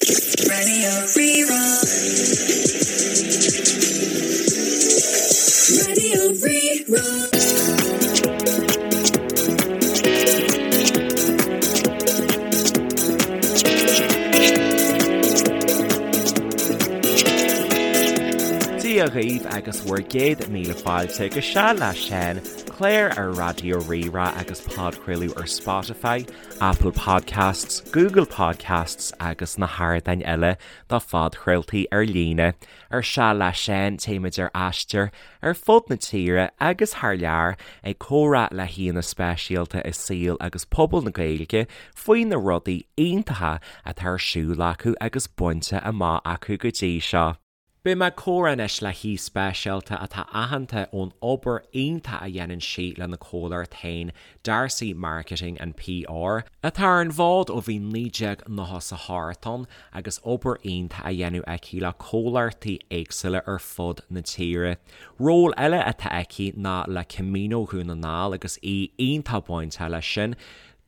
Radio Rí-Rá. Radio Rí-Rá. Dia dhaoibh agus bhur gcéad míle fáilte go Seal le Seán, clár ar Raidió Rí-Rá agus podchraoladh ar Spotify, Apple Podcasts, Google Podcasts agus na hardáin eile do phodchraoltaí ar líne. Ar Seal le Seán téimid ar aistear ar fud na tíre agus thar lear ag comhrá le haíonna speisialta i saol agus pobal na Gaeilge faoi na rudaí iontacha atá ar siúl acu agus bainte amach acu go dtí seo. Beidh mé ag comhrá anois le haoi speisialta atá aitheanta ón obair iontach a dhéanann sí lena comhlacht féin, D'Arcy Marketing and PR, atá ar an bhfód ó bhí 1998 ann agus obair iontach á dhéanamh aici le comhlachtaí éagsúla ar fud na tíre. Ról eile atá aici ná le Camino Dhún na nGall agus í iontach bainteach leis sin.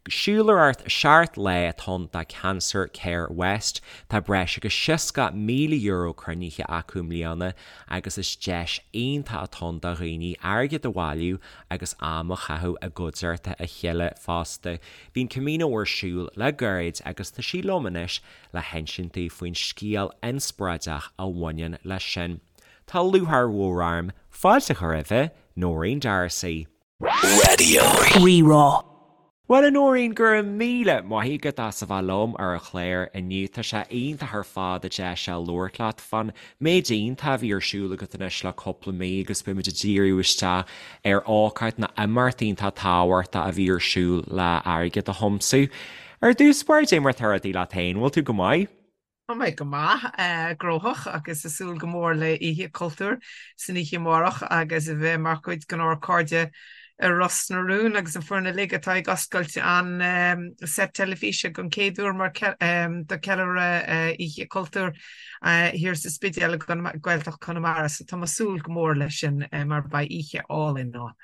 Siúlóireacht 7 lá atá ann do Cancer Care West. Tá breis agus €60,000 cruinnithe acu i mbliana agus is deis iontach atá ann do dhaoine airgead a bhailiú agus am a chaitheamh i gcuideachta a chéile fosta. Bhí an Camino ar siúl le gairid agus tá sí liom anois le hinsint daoibh faoin scéal inspioráideach a bhaineann leis sin. Tá lúcháir mhór orm fáilte a chur roimhe, Nóirín D'Arcy. Radio. Rí-Rá. Bhuel a Nóirín, go raibh míle maith agat as a bheith liom ar an chlár inniu. Tá sé iontach ar fad an deis seo labhairt leat fán méid iontach a bhí ar siúl agat anois le cúpla mí agus beidh muid ag díriú isteach ar ócáid nó imeacht iontach tábhachtach a bhí ar siúl le airgead a thiomsú. Ar dtús báire, cad é mar atá rudaí leat féin, bhfuil tú go maith? Tá mé go maith, gnóthach agus ag súil go mór le Oíche Cultúir san oíche amárach agus a bheith mar chuid den ár cairde i Ros na Rún agus an foireann uilig atá ag oscailt an set teilifíse don chéad uair mar do ceiliúradh Oíche Cultúir thiar sa Spidéal i Gaeltacht Chonamara. So tá mé ag súil go mór leis sin mar beidh oíche álainn ann.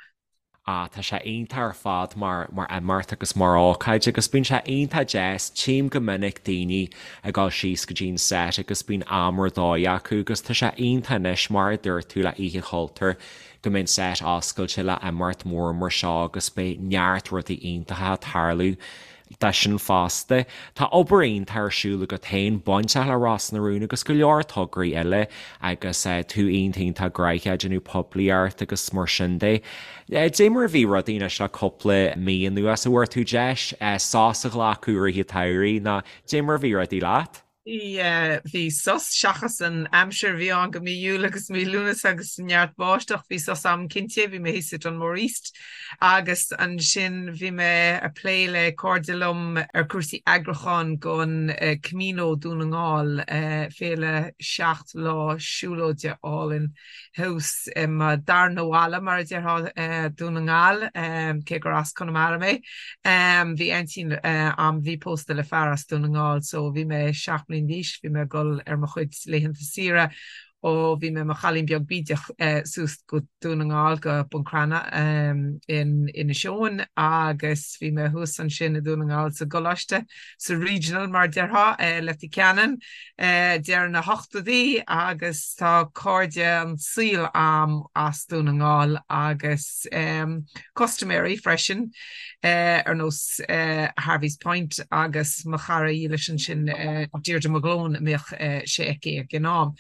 Ah, tá sé iontach ar fad mar, mar imeacht agus mar ócáid agus bíonn sé iontach deas, tchím go minic daoine ag dul síos go dtí an set agus bíonn am ar dóigh acu agus tá sé iontach anois mar a dúirt tú le Oíche Chultúir go mbeidh an set oscailte le imeacht mór mar seo agus beidh neart rudaí iontacha ag tarlú de sin fosta. Tá obair iontach ar siúl agat féin, bainteach le Ros na Rún agus go leor tograí eile agus tú iontach iontach gnoitheach ag déanamh poiblíocht agus mar sin de. Dé mar a bhí rudaí anois le cúpla mí anuas, an bhfuair tú deis sos a ghlacadh i rith an tsamhraidh nó dé mar a bhí rudaí leat? Yeah, bhí sos, seachas an aimsir a bhí ann go mí Iúil agus mí Lúnasa agus neart báisteach, bhí sos a'm cinnte, bhí mé thíos i Dunmore East agus ansin bhí mé a' plé le cairde liom ar cúrsaí eagrúcháin gon Camino Dún na nGall, féile 7 lá siúlóide álainn. thuas i mo darna bhaile, mar a déarfá, Dún na nGall, cé gur as Conamara mé. Bhí aintín a'm, bhí pósta le fear as Dún na nGall, so bhí mé 7 mbliana d'aois, bhí mé ag dul ar mo chuid laethanta saoire ó bhí mé i mo chailín beag bídeach suas go Dún na nGall, go Bun Cranncha in Inis Eoghain agus bhí mé thuas ansin i Dún na nGall sa gcoláiste, sa Regional mar a déarfá, Leitir Ceanainn. deireadh na hochtóidí agus tá cairde an tsaoil a'm as Dún na nGall agus custaiméirí freisin ar nós Harvey's Point agus mo chara dhílis ansin Deirdre McGlone a mbíodh sé aici ag an am.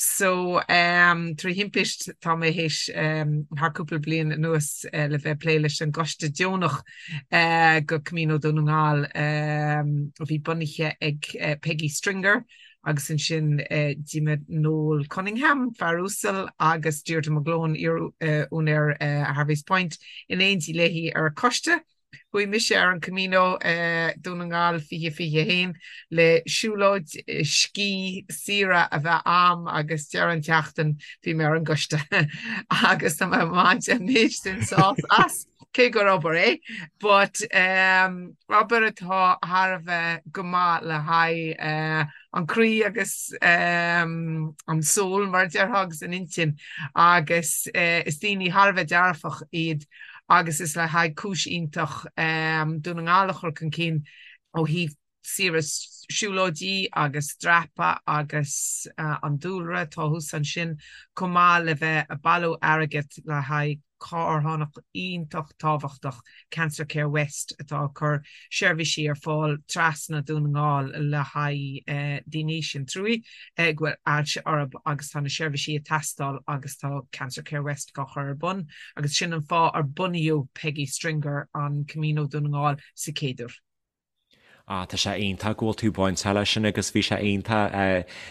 So trí thimpist tá mé théis thar cúpla bliain anuas le bheith ag plé leis an gcoiste deonach go Camino Dún na nGall a bhí bunaithe ag Peggy Stringer agus ansin d'imigh Noel Cunningham, fear uasal, agus Deirdre McGlone, iar-úinéir Harvey's Point, in éindí léi ar an choiste. Chuaigh mise ar an Camino Dún na nGall 2021 le siúlóid, scíth, saoire a bheith a'm agus deireadh an tseachtain bhí mé ar an gcoiste agus tá mé ag baint an méid sin sásamh as. cé gur obair é, but obair atá thar a bheith go maith le haghaidh an croí agus an soul mar a déarfá agus an intinn agus is daoine thar a bheith dearfach iad agus is le haghaidh cúis iontach Dún na nGall a chur chun cinn ó thaobh. Saoire siúlóidí agus dreapadh agus an dúlra atá thuas ansin, chomh maith le bheith ag bailiú airgead le haghaidh carthanacht iontach tábhachtach, Cancer Care West, atá ag cur seirbhísí ar fáil trasna Dún na nGall le haghaidh daoine sin trúí go bhfuil ailse orthu agus tá na seirbhísí ag teastáil agus tá Cancer Care West á chur ar bun agus sin an fáth ar bunaíodh Peggy Stringer an Camino Dún na nGall sa chéad uair. Ah, tá sé iontach go bhfuil tú bainteach leis sin agus bhí sé iontach,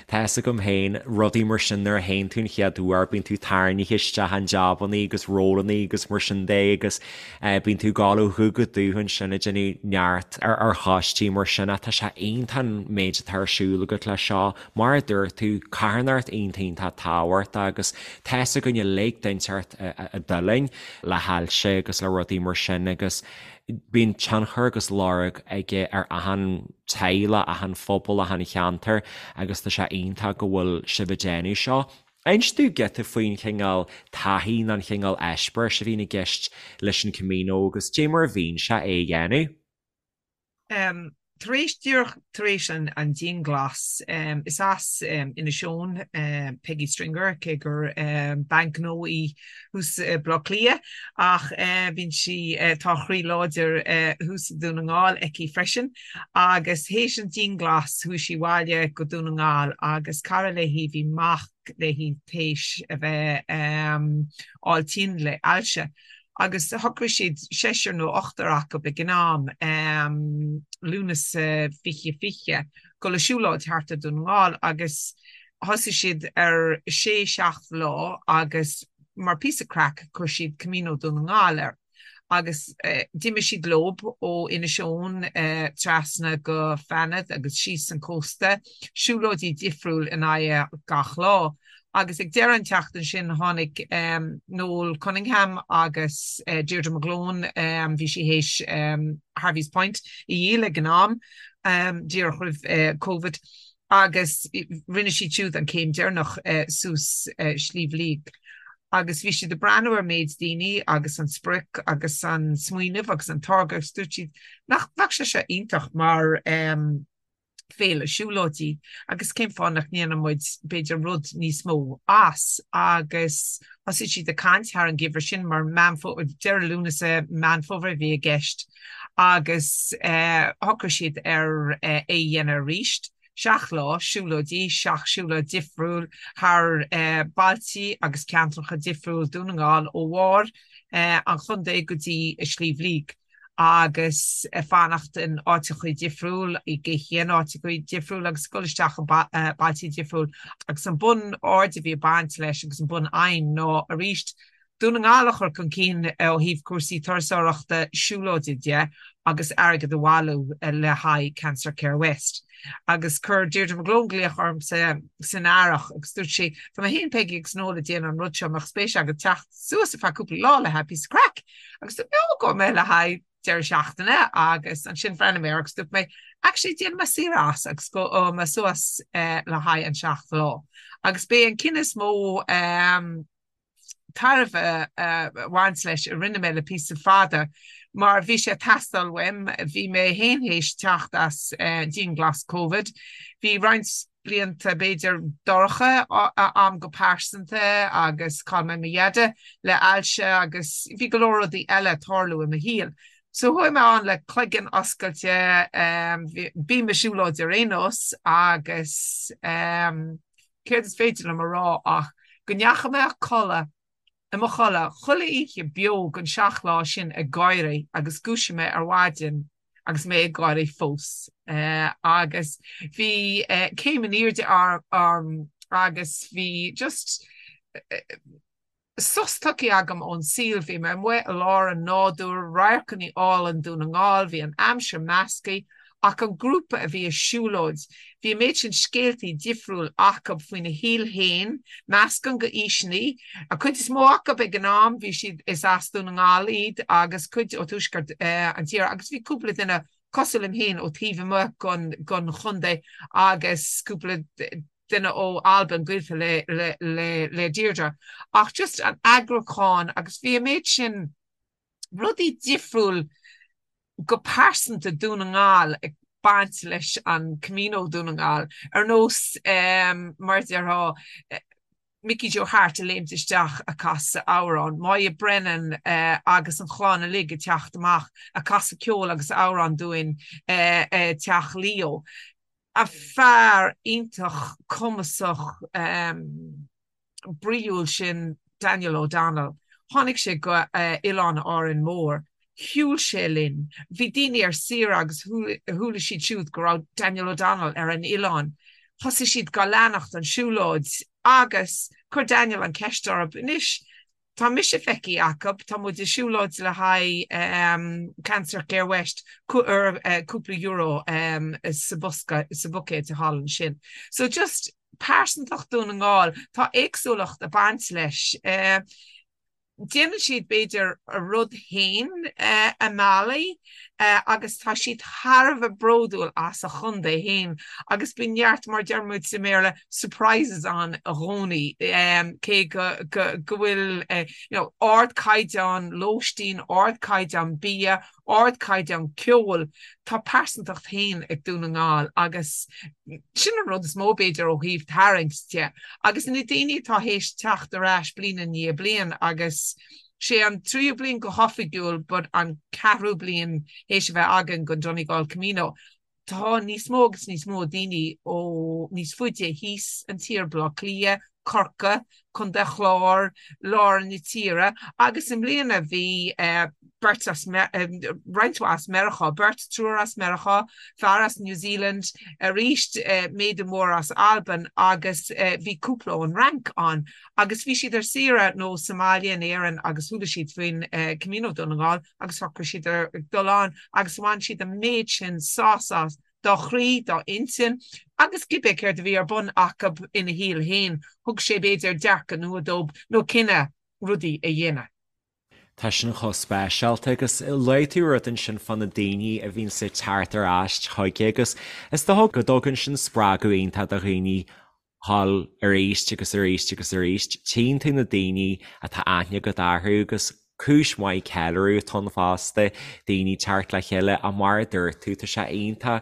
tá fhios agam féin, rudaí mar sin nuair a théann tú an chéad uair, bíonn tú tarraingthe isteach in jabannaí agus rólannaí agus mar sin de agus bíonn tú ag gabháil ó dhubh go dubh ansin ag déanamh neart ar choistí mar sin ach tá sé iontach an méid atá ar siúl agat leis seo. Mar a dúirt tú, carthanacht iontach iontach tábhachtach agus tá fhios againn uilig duine inteacht a d'fhulaing le hailse agus le rudaí mar sin agus Bíonn tionchar agus lorg aige ar achan teaghlach, achan phobal, achan cheantar agus tá sé iontach go bhfuil sibh ag déanamh seo. Inis dúinn giota faoin chineál taithí nó an chineál eispéiris a bhíonn i gceist leis an Camino agus dé mar a bhíonn sé é a dhéanamh. Tar éis, díreach tar éis an dianghlas, is as Inis Eoghain Peggy Stringer, cé gur bean gnó í thuas i Baile Átha Cliath, ach bíonn sí, tá a chroí láidir thuas i Dún na nGall aici freisin. Agus théis an dianghlas chuaigh sí abhaile go Dún na nGall agus cara léi, bhí mac léi théis a bheith fháil tinn le ailse. Agus shocraigh siad, seisear nó ochtar acu ag an am, Lúnasa 2020, dul ag siúlóid thart ar Dún na nGall agus thosaigh siad ar sé, seacht lá agus mar píosa craic chuir siad Camino Dún na nGall air. Agus d'imigh siad leob ó Inis Eoghain trasna go Fanad agus síos an cósta, siúlóidí difriúil in aghaidh gach lá. Agus ag deireadh an tseachtain sin tháinig Noel Cunningham agus Deirdre McGlone, bhí sí théis Harvey's Point a dhíol ag an am, díreach roimh Covid, agus rinne siad siúd an céim deireanach suas Sliabh Liag. Agus bhí siad ag breathnú ar méid daoine agus an sprioc agus an smaoineamh agus an táirge agus dúirt siad nach mbeadh sé seo iontach mar féile siúlóidí agus cén fáth nach ndéanann muid b'fhéidir rud níos mó as agus thosaigh siad ag caint thar an gheimhreadh sin mar Meán Fómhair, deireadh Lúnasa, Meán Fómhair a bhí i gceist agus shocraigh siad ar é a dhéanamh arís. Seacht lá siúlóidí, seacht siúlóid difriúil thar bailtí agus ceantracha difriúil Dún na nGall ó bharr an chontae go dtí Sliabh Liag. agus ag fanacht in áiteachaí difriúil, ag ithe in áiteachaí difriúil agus ag dul isteach i bailtí difriúil. Agus an bun aird a bhí ag baint leis agus an bun aidhm ná arís Dún na nGall a chur chun cinn ó thaobh cúrsaí turasóireachta siúlóide de agus airgead a bhailiú le haghaidh Cancer Care West. Agus chuir Deirdre McGlone glaoch ormsa san earrach agus dúirt sí, tá mé féin, Peggy agus Noel ag déanamh an rud seo, an mbeadh spéis agat teacht suas ar feadh cúpla lá le haghaidh píosa craic? Agus dúirt mé, ó, gabhfaidh mé le haghaidh deireadh seachtaine agus ansin bhreathnaigh mé air agus dúirt mé, actually déanfaidh mé saoire as agus gabhfaidh mé suas le haghaidh an seacht lá. Agus b'é an cinneadh is mó tairbhe a bhaint leis a rinne mé le píosa fada mar bhí sé ag teastáil uaim, bhí mé féin théis teacht as dianghlas Covid, bhí roinnt blianta b'fhéidir dorcha a'm go pearsanta agus chaill mé mo dheaide le ailse agus bhí go leor rudaí eile ag tarlú i mo shaol. So chuaigh mé ann le cloigeann oscailte, bím ag siúlóid ar aon nós agus céard is féidir liom a rá ach go ndeachaigh mé a codladh i mo chodladh chuile oíche beo den seacht lá sin ag gáirí agus dhúisigh mé ar mhaidin agus mé ag gáirí fós. Agus bhí céim in airde orm agus bhí just sos tugtha agam ón saol. Bhí mé amuigh i lár an nádúir, radharcanna álainn Dún na nGall, bhí an aimsir measctha ach an grúpa a bhí ag siúlóid, bhí an méid sin scéaltaí difriúil acu faoina shaol féin, meascán de aoiseanna, an cuid is mó acu ag an am, bhí siad, is as Dún na nGall iad agus cuid ó tuaisceart an tíre agus bhí cúpla duine cosúil liom féin ó taobh amuigh den chontae agus cúpla duine ó Albain gaolta le le Deirdre. Ach just an eagrúchán agus bhí an méid sin rudaí difriúil go pearsanta Dún na nGall ag. baint leis an Camino Dún na nGall, ar nós mar a déarfá Mickey Joe Harte ag léimt isteach a' casadh amhrán, Moya Brennan agus an chlann uilig ag teacht amach a' casadh ceol agus amhrán dúinn i Teach Leo. A fear iontach cumasach bríúil sin Daniel O'Donnell. Tháinig sé go Oileán Árainn Mhór. Shiúil sé linn. Bhí daoine ar saoire agus chuala siad siúd go raibh Daniel O'Donnell ar an oileán. Thosaigh siad gá leanacht an siúlóid agus chuir Daniel an ceist orthu, Anois, tá mise feicthe acu, tá muid ag siúlóid le haghaidh Cancer Care West, cuir cúpla euro sa bosca, sa bhuicéad thall ansin. So just pearsantacht Dún na nGall, tá éagsúlacht ag baint leis. Déanann siad b'fhéidir a rud féin i mbealaí agus tá siad thar a bheith bródúil as a chontae féin agus bíonn neart, mar a deir muid sa mBéarla, surprises ann i gcónaí cé go bhfuil you know ardchaighdeán lóistín, ardchaighdeán bia, ardchaighdeán ceoil, tá pearsantacht féin ag Dún na nGall agus sin an rud is mó b'fhéidir ó thaobh tarraingt de. Agus na daoine atá théis teacht ar ais bliain i ndiaidh bliain agus sé an tríú bliain go hoifigiúil but an ceathrú bliain théis a bheith againn den Donegal Camino, tá níos mó agus níos mó daoine ó níos faide thíos an tír, Baile Átha Cliath, Corcaigh, Contae an Chláir, lár na tíre agus i mbliana bhí beirt as, roinnt mhaith as Meiriceá, beirt, triúr as Meiriceá, fear as New Zealand, arís méadú mór as Albain agus bhí cúpla ón Fhrainc ann agus bhí siad ar saoire nó sa mbaile in Éirinn agus chuala siad faoin Camino Dún na nGall agus shocraigh siad ar dul ann agus bhain siad an méid sin sásamh dá chroí, dá intinn agus cibé céard a bhí ar bun acu ina shaol féin, thug sé b'fhéidir dearcadh nua dóibh nó cinneadh rudaí a dhéanamh. Tá sin chomh speisialta agus luaigh tú rud ansin fá na daoine a bhíonns ag teacht ar ais chuige agus is dócha go dtugann sin spreagadh iontach do dhaoine dhul arís agus arís agus arís. Tchíonn tú na daoine atá aithne agat orthu agus cúis mhaith ceiliúradh atá ann fosta, daoine teacht le chéile ach mar a dúirt tú, tá sé iontach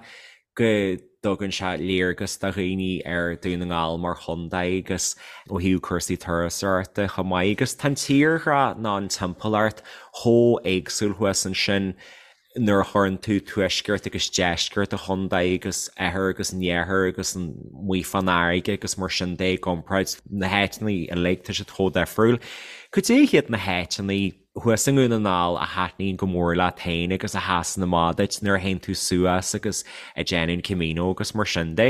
go dtugann sé léargas do dhaoine ar Dún na nGall mar chontae agus ó thaobh cúrsaí turasóireachta chomh maith agus tá an tírdhreach nó an timpeallacht chomh éagsúil thuas ansin nuair a chuireann tú tuaisceart agus deisceart an chontae agus oirthear agus an iarthar agus amuigh fán fharraige agus mar sin de i gcomparáid na háiteanna uilig, tá siad chomh difriúil. Cad é hiad na háiteanna thuas i nDún na nGall a thaitníonn go mór leat féin agus a sheasann amach duit nuair a théann tú suas agus ag déanamh an Camino agus mar sin de?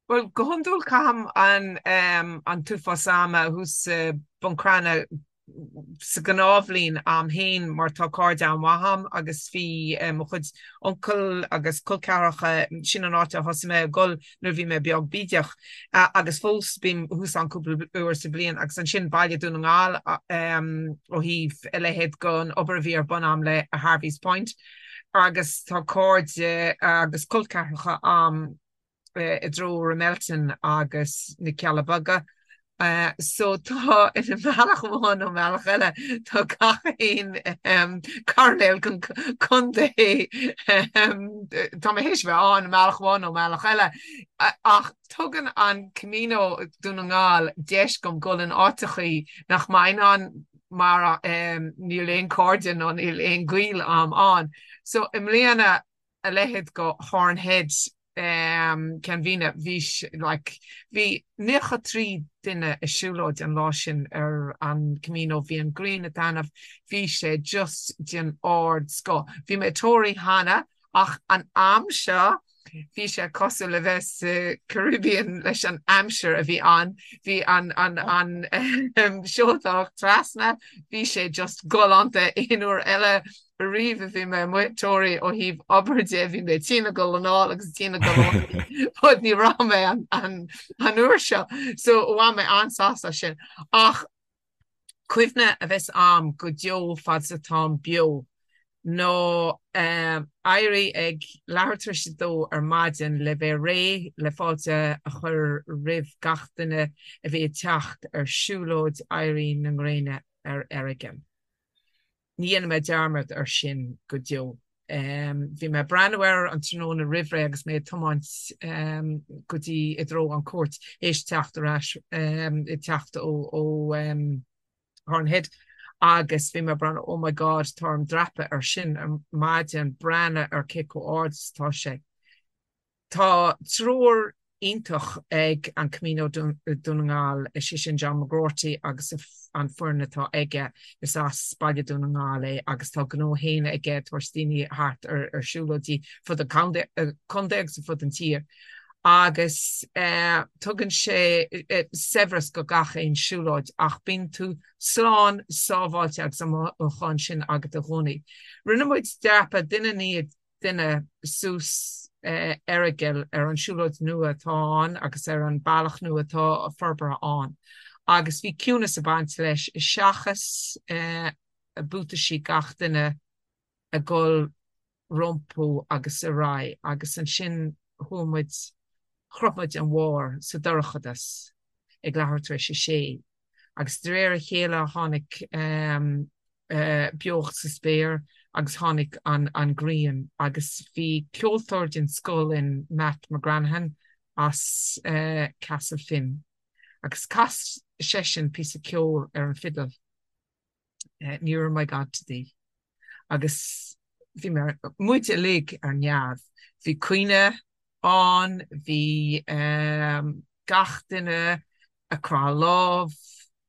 Bhuel, go hiondúil caithim an an t-uafás ama thuas i Bun Cranncha sa ghnáthbhliain a'm féin mar tá cairde an-mhaith a'm agus bhí mo chuid uncail agus col ceathracha, sin an áit a thosaigh mé ag dul nuair a bhí mé beag bídeach agus fós bím thuas ann cúpla uair sa bhliain agus ansin baile Dún na nGall ó thaobh a leithéid den obair a bhí ar bun a'm le Harvey's Point agus tá cairde agus col ceathracha a'm i dtreo Ramelton agus na Cealla Beaga. So tá i mbealach amháin nó mbealach eile tá gach aon coirnéal den chontae tá mé théis bheith ann i mbealach amháin nó mbealach eile ach tugann an Camino Dún na nGall deis dom dul in áiteachaí nach mbeinn ann mar níl aon cairde nó níl aon gaol a'm ann. So i mbliana a leithéid go Horn Head Ceann Mhíne, bhí like bhí 93 duine ag siúlóid an lá sin ar an Camino, bhí an ghrian ag taitneamh, bhí sé just den ardscoth. Bhí mé i Toraigh cheana ach an am seo bhí sé cosúil le bheith sa Caribbean leis an aimsir a bhí ann, bhí an an an seoltóireacht trasna, bhí sé just galánta aon uair eile Ariamh a bhí mé amuigh i Toraigh ó thaobh obair de, bhí mé tinn ag dul anall agus tinn ag dul abhaile but ní raibh mé an uair seo so bhain mé an-sásamh as sin. Ach cuimhne a bheas a'm go deo fad is atáim beo ná éirí ag leathuair tar éis a dó ar maidin le bheith réidh le fáilte a chur roimh gach duine a bhí ag teacht ar siúlóid éirí na ngréine ar Errigal. Ní dhéanfaidh mé dearmad ar sin go deo. Bhí mé ag breathnú air an tráthnóna roimhré agus mé ag tiomáint go dtí i dtreo an Chúirt théis teacht ar ais ag teacht ó Horn Head agus bhí mé ag breathnú oh my God tá orm dreapadh ar sin ar maidin breathnú ar cé chomh ard is atá sé. Tá treoir iontach ag an Camino Dún na nGall, is é sin John McGroarty agus an foireann atá aige. Is as Baile Dún na nGall é agus tá gnó féin aige ag tabhairt daoine thart ar siúlóidí fud an contae agus fud an tír. Agus tugann sé saibhreas go gach aon siúlóid ach bíonn tú slán sábháilte agus an mothúchán sin agat i gcónaí. Rinne muid dreapadh duine i ndiaidh duine suas Errigal ar an siúlóid nua atá ann agus ar an bealach nua atá forbartha ann. Agus bhí ciúnas ag baint leis seachas buataisí gach duine ag dul rompu agus ar aghaidh agus ansin chuaigh muid, shroich muid an bharr sa dorchadas ag leathuair tar éis a sé. Agus de réir a chéile tháinig beocht sa spéir agus tháinig an ghrian agus bhí ceoltóir den scoth linn, Matt McGranaghan as Castle Finn agus chas seisean píosa ceoil ar an fidil, Nearer My God to Thee agus bhí muid uilig ar neamh. Bhí caoineadh ann, bhí gach duine ag croitheadh lámh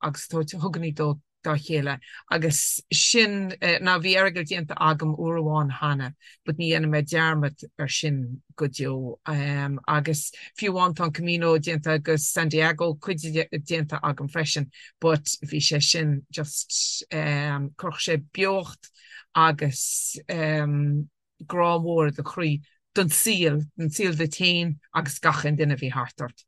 agus tabhairt hugannaí dó dá chéile agus sin now bhí Errigal déanta agam uair amháin cheana but ní dhéanfaidh mé dearmad ar sin go deo agus fiú amháin tá an Camino déanta go San Diego cuid déanta agam freisin but bhí sé sin just chuirfeadh sé beocht agus grá mór i do chroí don saol, don saol duit féin agus gach aon duine a bhí thart ort.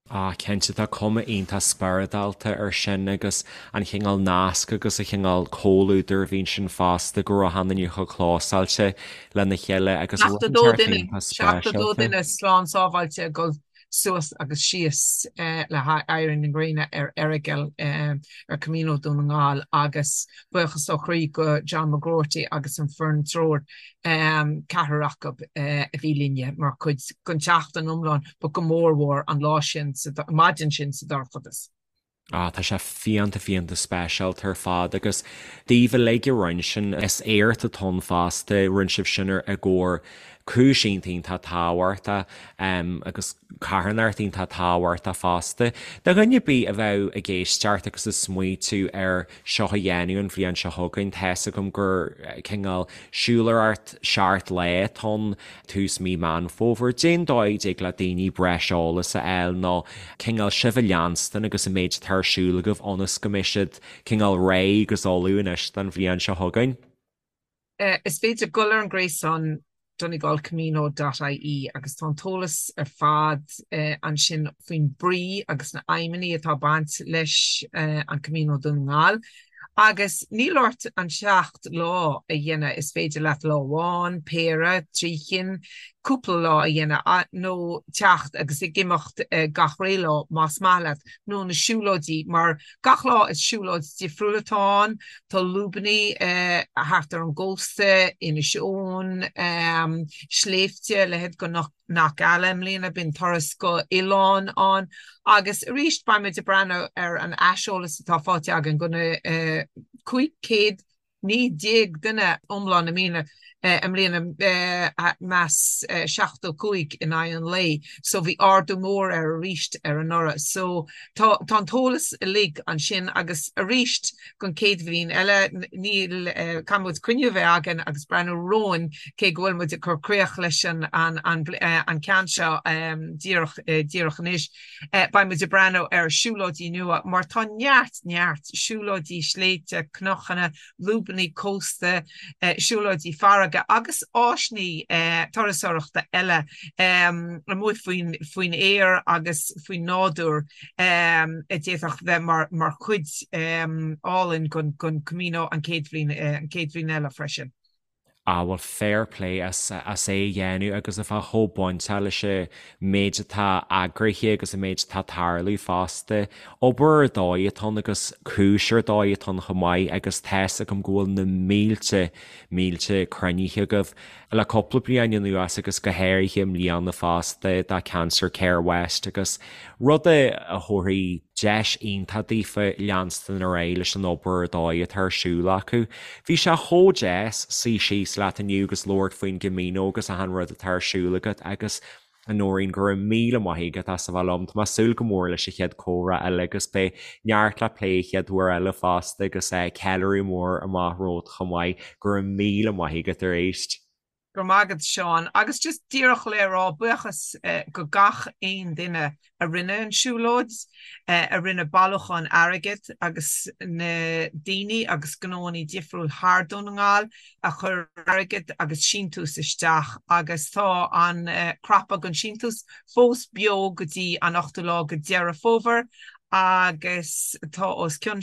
Ah, cinnte, tá cuma iontach spioradálta ar sin agus an chineál nasc agus an chineál comhluadair a bhí ansin fosta, go raibh achan duine chomh clósáilte lena chéile agus rud 72 duine, iontach 72 speisialta. duine slán sábháilte ag dul suas agus síos le éirí na gréine ar Errigal ar Camino Dún na nGall agus buíochas ó chroí go John McGroarty agus an foireann treoir, ceathrar acu a bhí linne mar chuid den tseachtain iomlán but go mór mhór an lá sin, an maidin sin sa dorchadas. Ah, tá sé fiánta fiánta speisialta ar fad agus daoibh uilig a rinne sin, is éacht atá ann fosta, rinne sibh sin ar i gcomhair cúis iontach iontach tábhachtach agus carthanacht iontach tábhachtach fosta. Do dhuine ar bith a bheadh ag éisteacht agus ag smaoitiú ar seo a dhéanamh an bhliain seo chugainn, tá's agam gur cineál siúlóireacht seacht lá atá ann, tús mí Meán Fómhair. Cén dóigh a dtig le daoine breis eolas a fháil nó cineál sibh a leanstan agus an méid atá ar siúl agaibh ionas go mbeidh siad cineál réidh agus ullamh anois don bhliain seo chugainn? Is féidir dul ar an gréasán donegalcamino dot ie agus tá an t-eolas ar fad ansin faoin brí agus na aidhmeanna atá ag baint leis an Camino Dún na nGall. Agus níl ort an 7 lá a dhéanamh, is féidir leat lá amháin, péire, 3 chinn, cúpla lá a dhéanamh nó teacht agus ag imeacht gach ré lá más maith leat, nó na siúlóidí mar gach lá is siúlóid difriúil atá ann, tá lúbannaí thart ar an gcósta, Inis Eoghain, sléibhte, leithéid go Knock Eala i mbliana, bíonn turas go oileán ann agus arís beidh muid ag breathnú ar an aiseolas atá faighte againn go na 519 duine iomlán i mbliana, i mbliana meas 75 in aghaidh an lae so bhí ardú mór air arís ar anuraidh so tá tá an t-eolas uilig ansin agus arís don chéad bhliain eile níl caithfidh muid cruinniú a bheith againn agus breathnú romhainn cé go bhfuil muid ag cur críoch leis an an ceann seo díreach díreach anois. Beidh muid ag breathnú ar siúlóidí nua mar tá neart neart siúlóidí sléibhte, cnocanna, lúbannaí cósta, siúlóidí farraige agus áiseanna turasóireachta eile amuigh faoin faoin aer agus faoin nádúr a d'fhéadfadh bheith mar mar chuid álainn den Camino an chéad bhliain an chéad bhliain eile freisin. Ah bhuel fair play as as é a dhéanamh agus a bheith chomh bainteach leis an méid atá eagraithe agus an méid atá ag tarlú fosta. Obair ar dóigh atá ann agus cúis ar dóigh atá ann chomh maith agus tá's agam go bhfuil na mílte, mílte cruinnithe agaibh le cúpla bliain anuas agus go háirithe i mbliana fosta do Cancer Care West agus rud a thabharfaidh deis iontach daofa leanstan ar aghaidh leis an obair ar dóigh atá ar siúl acu. Bhí sé chomh deas suí síos leat inniu agus labhairt faoin gCamino agus achan rud atá ar siúl agat agus a Nóirín, go raibh míle maith agat as a bheith liom. Tá mé ag súil go mór leis an chéad chomhrá eile agus beidh neart le plé an chéad uair eile fosta agus ceiliúradh mór amach romhat chomh maith. Go raibh míle maith agat arís. Go raibh maith agat Seán. Agus just díreach le rá buíochas go gach aon duine a rinne an siúlóid, a rinne bailiúchán airgid agus na daoine agus gnóannaí difriúil thar Dún na nGall a chuir airgead agus síntiús isteach agus tá an cnaipe don síntiús fós beo go dtí an 8ú lá de Deireadh Fómhair agus tá os cionn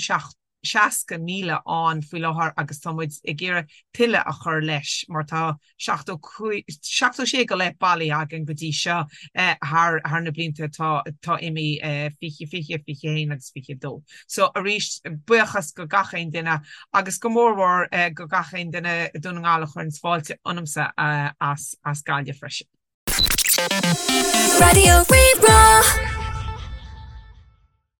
60,000 ann faoi láthair agus tá muid ag iarraidh tuilleadh a chur leis mar tá 76 go leith bailithe againn go dtí seo thar thar na blianta atá atá imithe 20, 20, 21 agus 22. So arís buíochas go gach aon duine agus go mór mhór go gach aon duine i Dún na nGall a chuireanns fáilte ionamsa as as Gaillimh freisin. Raidió Rí-Rá.